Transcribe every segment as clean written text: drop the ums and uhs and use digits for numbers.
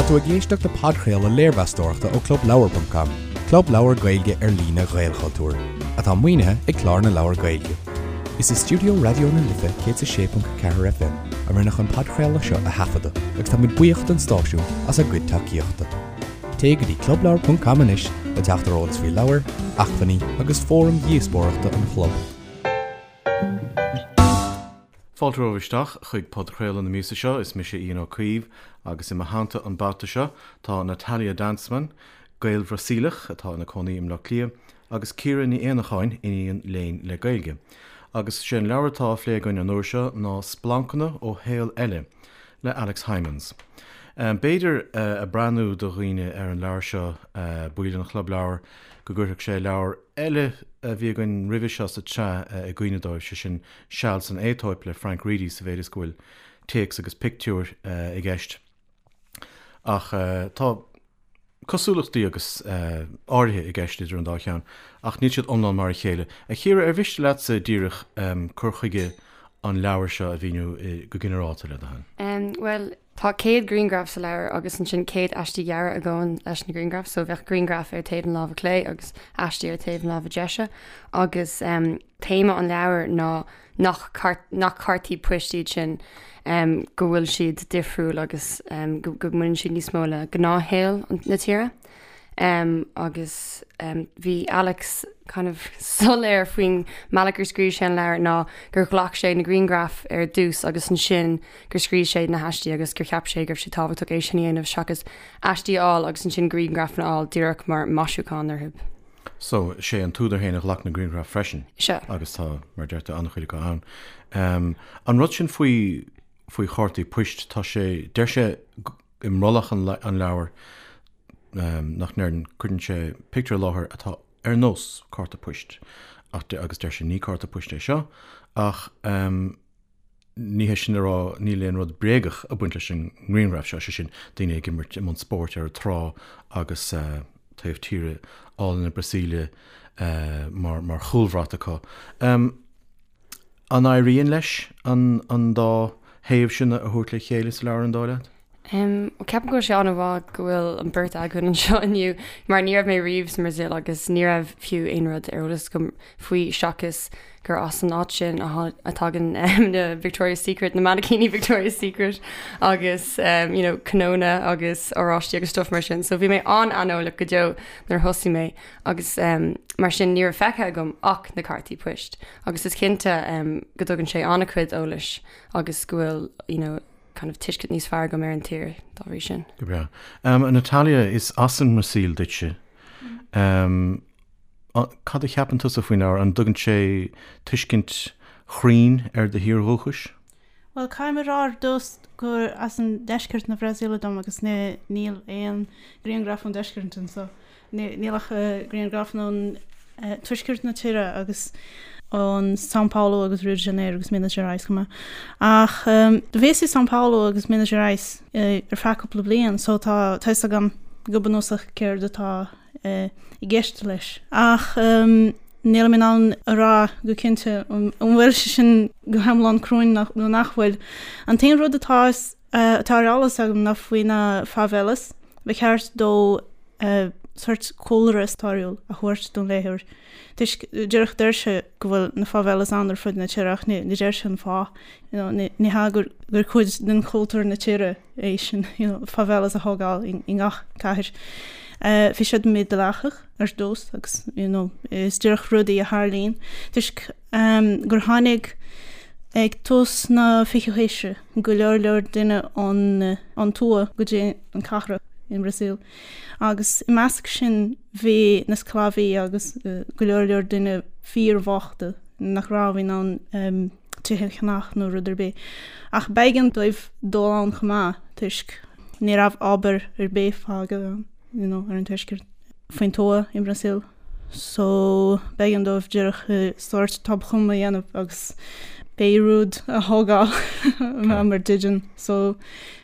Tá tú ag éisteacht le podchraoladh léirmheastóireachta ó ClubLeabhar.com, club leabhar Gaeilge ar líne Ghaelchultúir, atá maoinithe ag Clár na Leabhar Gaeilge. Is i stiúideo Raidió na Life 106.4 FM a rinneadh an podchraoladh seo a thaifeadadh agus táimid buíoch don stáisiún as a gcuid tacaíochta. Téigh go dtí clubleabhar.com anois le teacht ar eolas faoi leabhair, acmhainní agus fóraim dhíospóireachta an chlub. Fáilte romhaibh isteach chuig podchraoladh na míosa seo, is mise Ian Ó Caoimh agus i mo theannta an babhta seo tá Natalia Danzmann, Gael-Bhrasaíleach atá ina cónaí i mBleá Cliath, agus Ciara Ní Éanacháin, iníon léinn le Gaeilge. Agus sé an leabhar atá á phlé againn an uair seo ná Splancanna ó Shaol Eile le Alex Hijmans. B'fhéidir, ag breathnú do dhaoine ar an leabhar seo, baill an Chlub Leabhar, go gcuirfeadh sé leabhar eile a bhí againn roimhe seo sa tsraith i gcuimhne dóibh, sé sin Seal san Aetóip le Frank Reidy sa mhéid is go bhfuil téacs agus pictiúir i gceist. Ach tá cosúlachtaí agus áirithe i gceist idir an dá cheann, ach níl siad iomlán mar a chéile. A Chiara, ar mhiste leatsa díreach cur chuige an leabhair seo a mhíniú go ginearálta, le do thoil? Bhuel, tá 100 grianghraf sa leabhar agus ansin 100 aistí gearra a ghabhann leis na grianghraif, so bheadh grianghraf ar taobh na láimhe clé agus aistí ar taobh na láimhe deise agus téama an leabhair ná nach nach cártaí poist iad sin, go bhfuil siad difriúil agus go mbaineann siad níos mó le gnáthshaol na tíre. Agus bhí Alex kind of soiléir faoin mbealach gur scríobh sé an leabhar ná gur ghlac sé na grianghraif ar dtús agus ansin gur scríobh sé na haistí agus gur cheap sé go raibh sé tábhachtach é sin a dhéanamh seachas aistí a fháil agus ansin grianghrafanna a fháil díreach mar maisiúchán orthu. So, sé an t-údar féin a ghlac na grianghraif freisin. Sea. Agus tá, mar a deir tú, an-chuid acu ann. An rud sin faoi, faoi chártaí poist, tá sé, deir sé i mbrollach an leabhair nach ndeireann, cuireann sé pictiúr i láthair atá ar nós cárta poist ach, agus deir sé ní cárta poist é seo ach, Ní hé sin le rá níl aon rud bréagach ag baint leis an ngrianghraf seo, sé sin, daoine ag imirt i mbun spóirt ar an trá agus taobh tíre álainn na Brasaíle mar chúlbhrat acu. An éiríonn leis an dá thaobh sin a thabhairt le chéile sa leabhar, an dóigh leat? Ceapaim go bhfuil sé an-mhaith go bhfuil an bheirt againn anseo inniu mar ní raibh mé riamh sa mBrasaíl agus ní raibh fiú aon rud ar eolas agam faoi seachas gur as an áit sin a thagann na Victoria's Secret, na mainicíní Victoria's Secret agus you know cnónna agus oráistí agus stuff mar sin. So bhí mé an-aineolach go deo nuair a thosaigh mé agus mar sin ní raibh feicthe agam ach na cártaí poist agus is cinnte go dtugann sé an-chuid eolais agus go bhfuil you know kind of tuiscint níos fearr agam ar an tír dá bhrí sin. Go breá. Um, Natalia, is as an mBrasaíl duitse. Um, cad a cheapann tusa faoin leabhar? An dtugann sé tuiscint chruinn ar do thír dhúchais? Bhuel, caithfidh mé a rá ar dtús gur as an deisceart na Brasaíle dom agus níl aon grianghraf ón deisceart anseo. Níl ach grianghrafanna ón tuaisceart na tíre agus ón São Paulo agus Rio de Janeiro agus Minas Gerais chomh maith. Ach do bhíos i São Paulo agus Minas Gerais ar feadh cúpla bliain so tá tá fhios agam go bunúsach céard atá i gceist leis. Ach nílim in ann a rá go cinnte an bhfuil sé sin go hiomlán cruinn nó nach bhfuil. An t-aon rud atá atá ar eolas agam ná faoi na favelas. Ba cheart dó sórt cúlra stairiúil a thabhairt don léitheoir toisc díreach deir sé go bhfuil na favelas ann ar fud na tíre ach ní deir sé an fáth. You know, ní ní hea gur gur cuid den chultúr na tíre é sin, you know, favelas a thógáil i i ngach cathair. Bhí siad mídhleathach ar dtús agus you know, is díreach rudaí a tharlaíonn toisc gur tháinig ag tús na fichiú haoise go leor leor duine ón ón tuath go dtí an cathrach i mBrasaíl agus i measc sin bhí na sclábhaí agus go leor leor duine fíorbhochta nach raibh in ann tithe a cheannach nó rud ar bith. Ach b'éigean dóibh dul ann chomh maith toisc ní raibh obair ar bith fágtha ann you know, ar an tuaisceart faoin tuath i mBrasaíl. So b'éigean dóibh díreach sórt tobchumadh a dhéanamh agus pé rud a thógáil mar dídean. So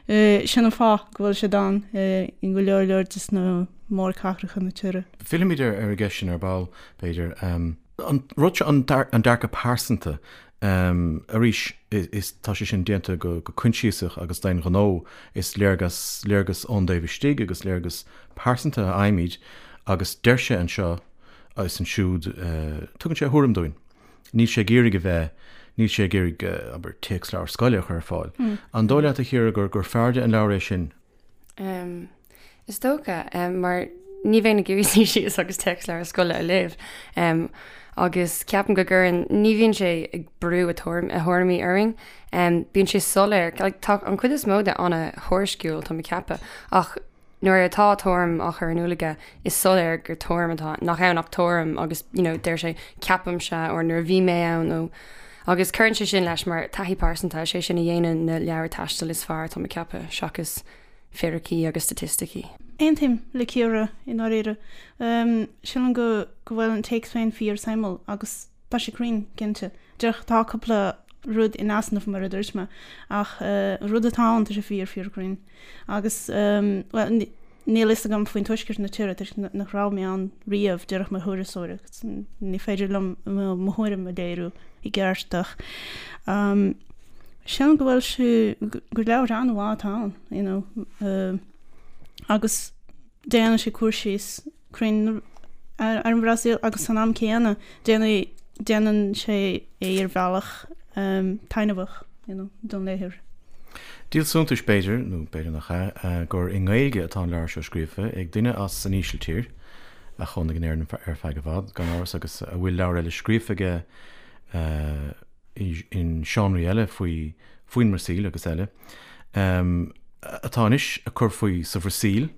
sin an fáth go bhfuil siad ann i go leor leor de na mórchathracha na tíre. Fillfimid ar an gceist sin ar ball, b'fhéidir. An rud seo, an dearcadh pearsanta. Arís, is tá sé sin déanta go coinsiasach agus d'aon ghnó, is léargas, léargas ón dtaobh istigh agus léargas pearsanta a fhaighimid agus deir sé anseo is ansiúd, tugann sé a thuairim dúinn. Níl sé ag iarraidh a bheith, níl sé ag iarraidh, abair, téacsleabhar scoile a chur ar fáil. An dóigh leat, a Chiara, gur gur fearrde an leabhar é sin? Is dócha, mar ní bheinn ag iarraidh suí síos agus téacsleabhar scoile a léamh. Agus ceapaim go gcuireann, ní bhíonn sé ag brú a thuairimí orainn. Bíonn sé soiléir, tá an chuid is mó de an-thuairisciúil, tá mé ag ceapadh, ach nuair atá tuairim á chur in iúl aige, is soiléir gur tuairim atá, nach ann ach tuairim agus you know deir sé ceapaimse or nuair a bhí mé ann nó agus cuireann sé sin leis mar taithí pearsanta, is é sin a dhéanann na leabhair taistil is fearr, tá mé ag ceapadh, seachas fíricí agus staitisticí. Aontaím le Ciara i ndáiríre. Sílim go go bhfuil an téacs féin fíor-suimiúil agus tá sé cruinn, cinnte. Díreach tá cúpla rud in easnamh mar a dúirt mé ach an rud atá ann tá sé fíor fíor cruinn. Agus, bhuel, níl fhios agam faoin tuaisceart na tíre toisc nach raibh mé ann riamh díreach mar thurasóir agus ní féidir liom mo thuairim a léiriú i gceart ach sílim go bhfuil sé, gur leabhar an-mhaith atá ann, you know, agus déanann sé cur síos cruinn ar an Bhrasaíl agus san am céanna déanann déanann sé é ar bhealach taitneamhach you know, don léitheoir. Díol suntais b'fhéidir, nó b'fhéidir nach ea, gur i nGaeilge atá an leabhar seo scríofa ag duine as an Ísiltír, a chónaigh in Éirinn ar feadh i bhfad, gan amhras, agus a bhfuil leabhar eile scríofa aige in seánraí eile faoi faoin mBrasaíl agus eile, atá anois ag cur faoi sa Bhrasaíl.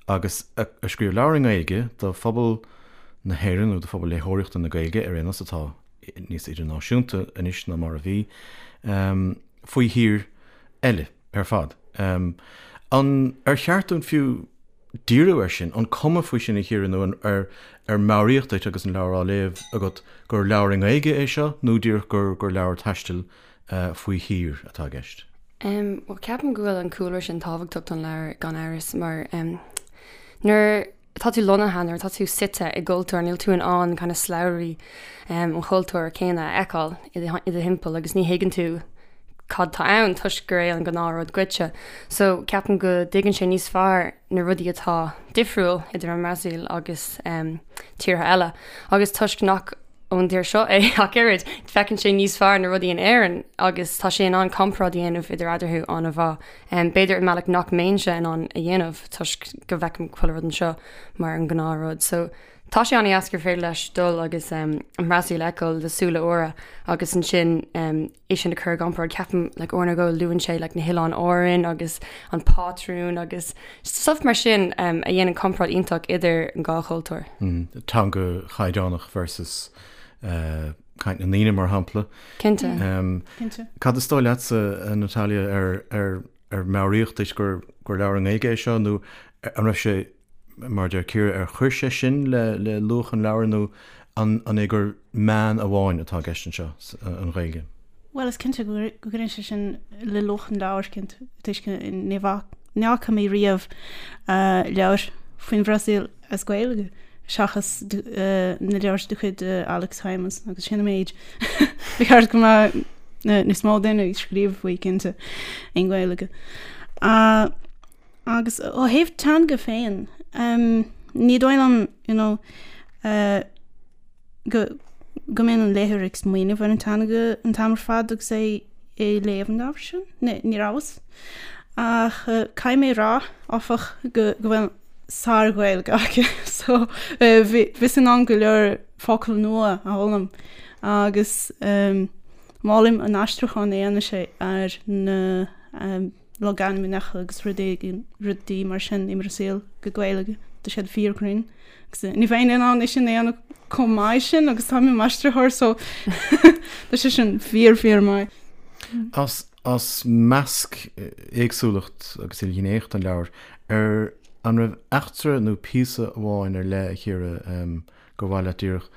agus a scríobh leabhar i nGaeilge do phobal na hÉireann, nó do phobal léitheoireachta na Gaeilge ar aon nós, atá níos idirnáisiúnta anois ná mar a bhí, faoi thír eile ar fad. An ar cheart dúinn fiú díriú air sin? An cuma faoi sin, a Chiara, nó an ar ar meabhraíodh duit agus an leabhar á léamh agat gur leabhar i nGaeilge é seo nó díreach gur gur leabhar taistil faoi thír atá i gceist? Bhuel, ceapaim go bhfuil an cúlra sin tábhachtach don leabhar gan amhras mar nuair atá tú lonnaithe, nuair atá tú suite i gcultúr, níl tú in ann kind of slabhraí an chultúir céanna a fheiceáil i do thimpeall agus ní thuigeann tú cad tá ann toisc gur é an gnáthrud dhuitse. So ceapaim go dtuigeann sé níos fearr na rudaí atá difriúil idir an mBrasaíl agus tíortha eile agus toisc nach ón dtír seo é ach oiread. Feiceann sé níos fearr na rudaí in Éirinn agus tá sé in ann comparáid a dhéanamh idir eadarthu an-mhaith. B'fhéidir i mbealach nach mbeinnse in ann a dhéanamh toisc go bhfeicim chuile rud anseo mar an gnáthrud. So tá sé an-dheas gur féidir leis dul agus an Bhrasaíl a fheiceáil le súile úra agus ansin é sin a chur i gcomparáid. Ceapaim like uair nó dhó luann sé like na hOileáin Árann agus an pátrún agus stuff mar sin um, a dhéanann comparáid iontach idir an dhá chultúr. Mm, teanga chaighdeánach versus uh, caint na ndaoine mar shampla. Cinnte. Um, Cinnte. Cad is dóigh leatsa, uh, Natalia, ar, ar, ar meabhraíodh duit gur, gur leabhar i nGaeilge é seo nó an raibh sé Mar a deir Ciara, ar chuir sé sin le luach an leabhair nó an é gur meán amháin atá i gceist anseo, an Ghaeilge? Bhuel, is cinnte go gcuireann sé sin le luach an leabhair, cinnte, toisc ní fhaca mé riamh leabhar faoin Bhrasaíl as Gaeilge seachas na leabhair de chuid Alex Hijmans agus sin an méid. Ba cheart go mbeadh níos mó daoine ag scríobh faoi, cinnte, i nGaeilge. Agus ó thaobh teanga féin, ní dóigh liom, you know, go go mbíonn an léitheoir ag smaoineamh ar an teanga an t-am ar fad agus é ag léamh an leabhair sin. Ní rabhas. Ach caithfidh mé a rá, áfach, go go bhfuil sár-Ghaeilge aici so bhíos in ann go leor focal nua a fhoghlaim agus molaim an aistriúchán a dhéanann sé ar na logainmneacha agus rudaí rudaí mar sin i mBrasaíl go Gaeilge, tá siad fíorchruinn. Agus ní bheinn in ann é sin a dhéanamh chomh maith sin agus táim i m'aistritheoir so tá sé sin fíor fíor maith. As as measc éagsúlacht agus ilghnéitheacht an leabhair, ar an raibh eachtra nó píosa amháin ar leith a Chiara gur mhaith leat díreach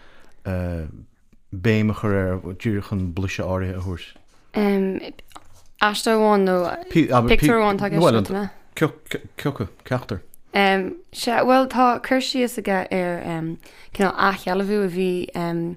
béim a chur air díreach chun blaiseadh áirithe a thabhairt. Aiste amháin nó pictiúr amháin atá i gceist agat, an ea? Cioca, ceachtar. Em, sea, bhuel tá cur síos aige ar em, cineál athshealbhú a bhí em,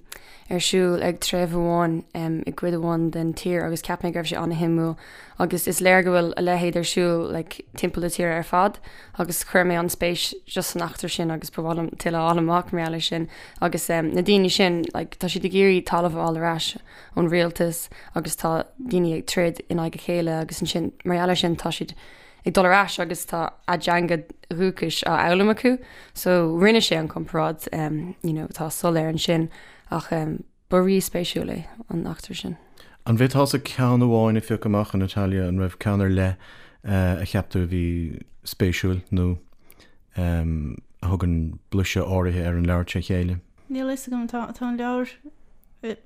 ar siúl ag treibh amháin em, i gcuid amháin den tír agus cheap mé go raibh sé an-shuimiúil agus is léir go bhfuil a leithéid ar siúl like, timpeall na tíre ar fad agus chuir mé an-spéis just san eachtra sin agus ba mhaith liom tuilleadh a fháil amach mar gheall air sin agus em, na daoine sin like, tá siad ag iarraidh talamh a fháil ar ais ón rialtas agus tá daoine ag troid in aghaidh a chéile agus ansin mar gheall air sin tá siad ag dul ar ais agus tá a dteanga dhúchais á fhoghlaim acu so rinne sé an comparáid um, you know, tá soiléir ansin ach um, ba rí-spéisiúil é an eachtra sin. An bhféadfása ceann amháin a phiocadh amach, a Natalia, an raibh ceann ar leith uh, a cheap tú a bhí spéisiúil nó um, a thugann blaiseadh áirithe ar an leabhar tré chéile? Níl a fhios agam, tá tá an leabhar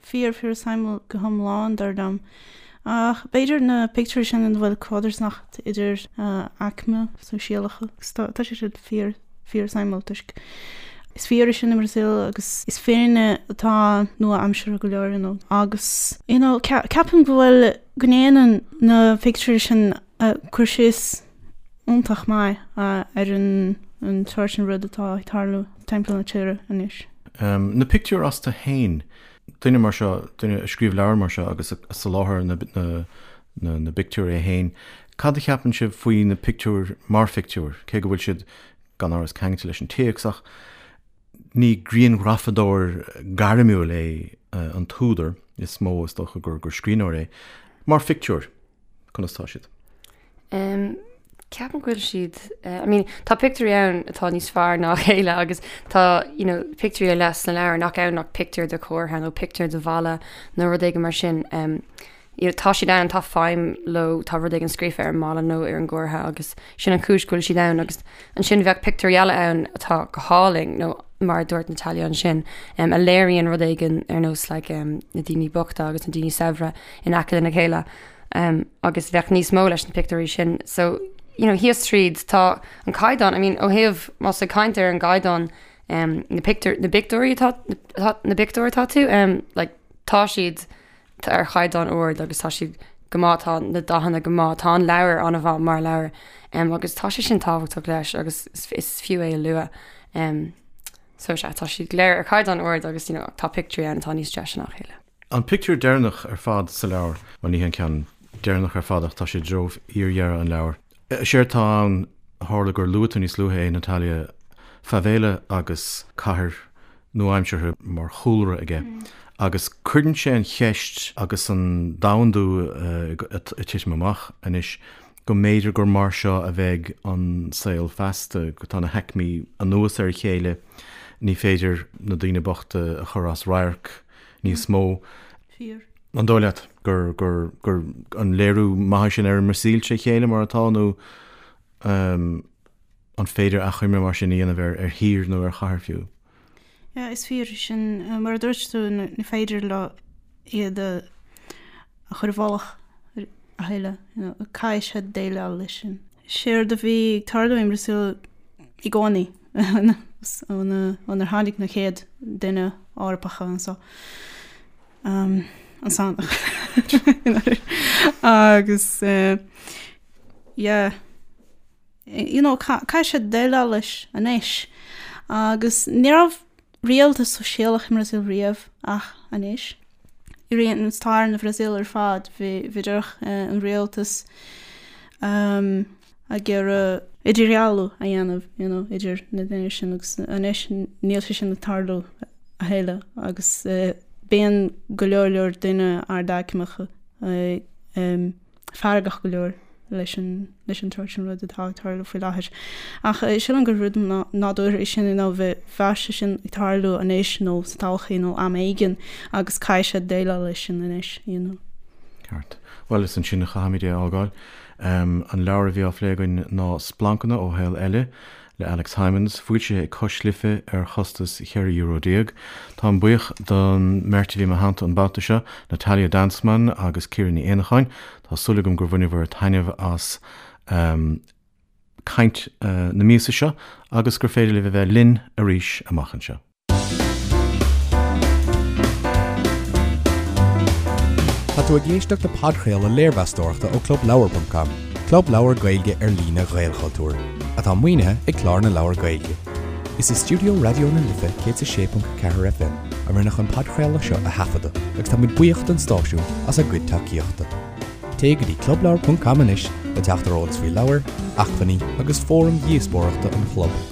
fíor fíor suimiúil go hiomlán dar liom. Ach b'fhéidir na pictiúirí sin ina bhfuil codarsnacht idir aicme sóisialacha agus tá tá sé siad fíor fíor suimiúil toisc is fíor é sin i mBrasaíl agus is fírinne atá nua-aimseartha go leor you know agus you know ceapaim go bhfuil go ndéanann na pictiúirí sin cur síos iontach maith ar an an tsórt sin rud atá ag tarlú timpeall na tíre anois. Na pictiúir astu féin, duine mar seo, duine a scríobh leabhar mar seo agus a soláthair na na na bpictiúir é féin, cad a cheapann sibh faoi na pictiúir mar phictiúir, cé go bhfuil siad gan amhras ceangailte leis an téacs ach ní grianghrafadóir gairmiúil é an t-údar, is mó is dócha gur gur scríbhneoir é, mar phictiúir. Conas tá siad? Um, ceapaim go bhfuil siad, uh, I mean, tá pictiúirí ann atá níos fearr ná a chéile agus tá, you know, pictiúirí ar leith sna leabhair nach ann ach pictiúr de chomhartha nó pictiúr de bhalla nó rud éigin mar sin. Um, you know, tá siad ann, tá feidhm leo, tá rud éigin scríofa ar an mballa nó ar an gcomhartha agus sin an chúis go bhfuil siad ann agus ansin bheadh pictiúirí eile ann atá go hálainn nó mar a dúirt Natalia ansin, um, a léiríonn rud éigin ar nós like, um, na daoine bochta agus na daoine saibhre in aice lena chéile um, agus bheadh níos mó leis na pictiúirí sin. So, you know, thíos tríd tá an caighdeán, I mean, ó thaobh más ag caint ar an gcaighdeán um, na pictiúr, na bpictiúirí atá, na bpictiúr atá tú, um, like, tá siad ar chaighdeán ard agus tá siad go maith, tá na dathanna go maith, tá an leabhar an-mhaith mar leabhar um, agus tá sé sin tábhachtach leis agus is, is fiú é a lua. Um, so sea, tá siad go léir ar chaighdeán ard agus you know, tá pictiúirí ann atá níos deise ná a chéile. An pictiúr deireanach ar fad sa leabhar, bhuel ní hé an ceann deireanach ar fad ach tá sé i dtreo fhíordheireadh an leabhair. Is éard atá ann, tharla gur luaigh tú níos luaithe é, Natalia, favela agus cathair nua-aimseartha mar chúlra aige agus cuireann sé an cheist agus an domhandú ag titim amach anois go mb'fhéidir gur mar seo a bheidh an saol feasta, go tá na haicmí anuas ar a chéile, ní féidir na daoine bochta a chur as radharc níos mó. Fíor. An dóigh leat gur, gur, gur an léiriú maith é sin ar an mBrasaíl tré chéile mar atá nó an féidir achoimre mar sin a dhéanamh ar, ar thír nó ar chathair fiú? Yeah, is fíor é sin. Mar a dúirt tú, ní féidir leo iad a chur i bhfolach a thuilleadh. You know, caithfidh siad déileáil leis sin. Séard a bhí ag tarlú i mBrasaíl i gcónaí ónar tháinig na chéad duine Eorpacha anso. An Sasanach. Agus yeah. you know, caithfidh siad déileáil leis anois. Agus ní raibh rialtas sóisialach i mBrasaíl riamh ach anois. I rith an stair na Bhrasaíle ar fad bhí bhí díreach an rialtas um, ag iarraidh idirdhealú a dhéanamh you know, idir na daoine sin agus anois níl sé sin ag tarlú a thuilleadh agus uh, bíonn go leor leor daoine ardaicmeacha uh, um, feargach go leor leis an leis an tsórt sin rud atá ag tarlú faoi láthair. Ach sílim gur rud nádúrtha é sin you know bheadh sé sin ag tarlú anois nó sa todhchaí nó am éigin agus caithfidh siad déileáil leis sin anois you know. Ceart. Bhuel, is ansin a chaithfimid é a fhágáil. An leabhar a bhí á phlé againn ná Splancanna ó Shaol Eile le Alex Hijmans, foilsithe ag Cois Life ar chostas €14 euro. Táim buíoch don mbeirt a bhí i mo theannta an babhta seo, Natalia Danzmann agus Ciara Ní Éanacháin. Tá súil agam gur bhaineabhair taitneamh as caint na míosa seo agus gur féidir libh a bheith linn arís amach anseo. Tá tú ag éisteacht le podchraoladh léirmheastóireachta ó ClubLeabhar.com. Club Leabhar Gaeilge ar líne Ghaelchultúir, atá maoinithe ag Clár na Leabhar Gaeilge. Is i stiúideo Raidió na Life 106.4 FM a rinneadh an podchraoladh seo a thaifeadadh agus tá muid buíoch don stáisiún as a gcuid tacaíochta. Téigh go dtí clubleabhar ponc com anois le teacht ar eolas faoi leabhair, acmhainní agus fóraim dhíospóireachta an chlub.